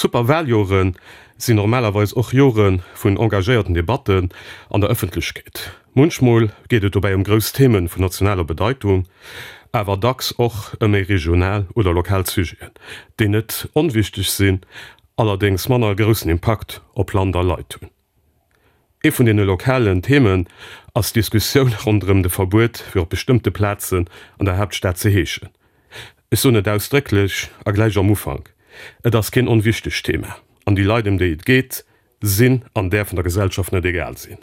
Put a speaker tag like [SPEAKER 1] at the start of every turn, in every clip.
[SPEAKER 1] D'Superwaljoren sinn normalerweis och Jore vun engagéierten Debatten an der Ëffentlechkeet. Munchmol geet et dobäi ëm grouss Theme vun nationaler Bedeitung, awer dacks och ëm méi regional oder lokal Sujeten, déi net onwichteg sinn, allerdéngs manner groussen Impakt op Land a Leit hunn. Ee vun deene lokalen Themen ass d'Diskussioun ronderëm de Verbuet fir op bestëmmte Plazen an der Haaptstad ze heeschen. Ech soen et ausdrécklech a gläich am Ufank, Et ass keen onwichtegt Thema an déi Leit ëm déi et geet sinn an däerfen der Gesellschaft net egal sinn.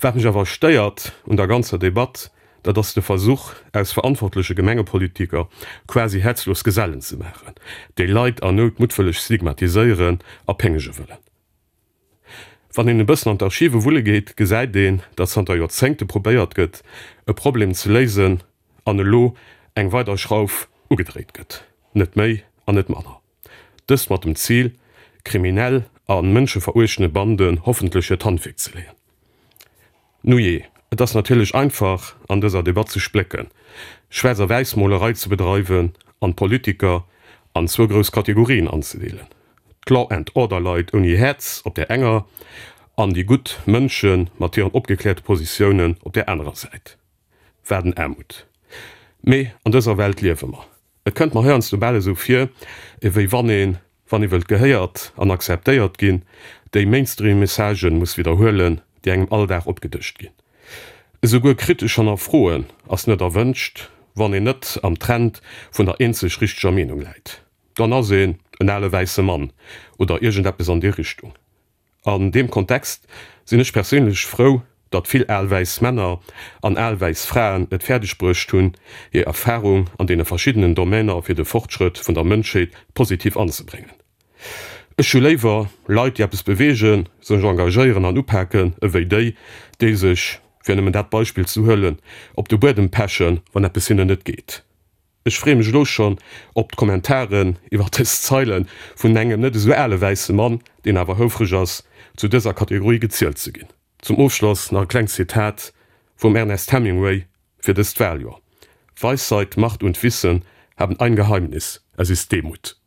[SPEAKER 1] Wat mech awer stéiert un der ganzer Debatt, dat ass de Versuch, aus verantwortleche Gemengepolitiker quasi häerzlos Gesellen ze maachen, déi Leit an Nout muttwëlleg stigmatiséieren a péngege wëllen. Wann een e bëssen an d'Archive wulle geet, gesäit een, datt zanter Joerzéngte probéiert gëtt, e Problem ze léisen an elo eng weider Schrauf ugedréit gëtt, net méi an net manner. Dëst mat dem Zil, kriminell a mënscheveruechtende Banden hoffentlech hiert Handwierk ze leeën. Nujee, et ass natierlech einfach, an dëser Debatt ze splécken, Schwaarz a Wäissmolerei ze bedreiwen an d'Politiker an zwou grouss Kategorien anzedeelen, d'Law and Order Leit ouni Häerz op där enger an déi gutt Mënsche mat hiren opgekläerte Positiounen op där anerer Säit. Wat en Aarmut! Mee an dëser Welt liewe mer. Et kënnt mer heiansdo bal esou vir, ewéi wann een, wann ee wëllt gehéiert an akzeptéiert ginn, déi Mainstream-Messagen muss widderhuelen, déi engem all Dag opgedëscht ginn. Esouguer kritesch hannerfroen ass net erwënscht, wann een net am Trend vun der eenzeg richteger Meenung läit. Dann ass een en ale wäisse Mann oder iergendeppes an déi Richtung. An deem Kontext sinn ech perséinlech frou, datt vill al wäiss Männer an al wäiss Fraen et fäerdeg bruecht hunn, hir Erfahrung an deene verschiddenen Domainer fir de Fortschrëtt vun der Mënschheet positiv anzebréngen. Ech hu léiwer Leit, déi eppes beweegen, sech engagéieren an upaken, ewéi déi, déi sech, fir nëmmen dat Beispill ze huelen, op de Buedem pechen, wann eppes hinnen net geet. Ech freeë mech elo schonn op d'Kommentaren iwwer dës Zeile vun engem net esou ale wäisse Mann, deen awer houfreg ass, zu dëser Kategorie gezielt ze ginn. Zum Ofschloss nach e klengt Zitat vum Ernest Hemingway fir dëst Waljoer, Weisheit, Macht und Wissen haben ein Geheimnis, es ist Demut.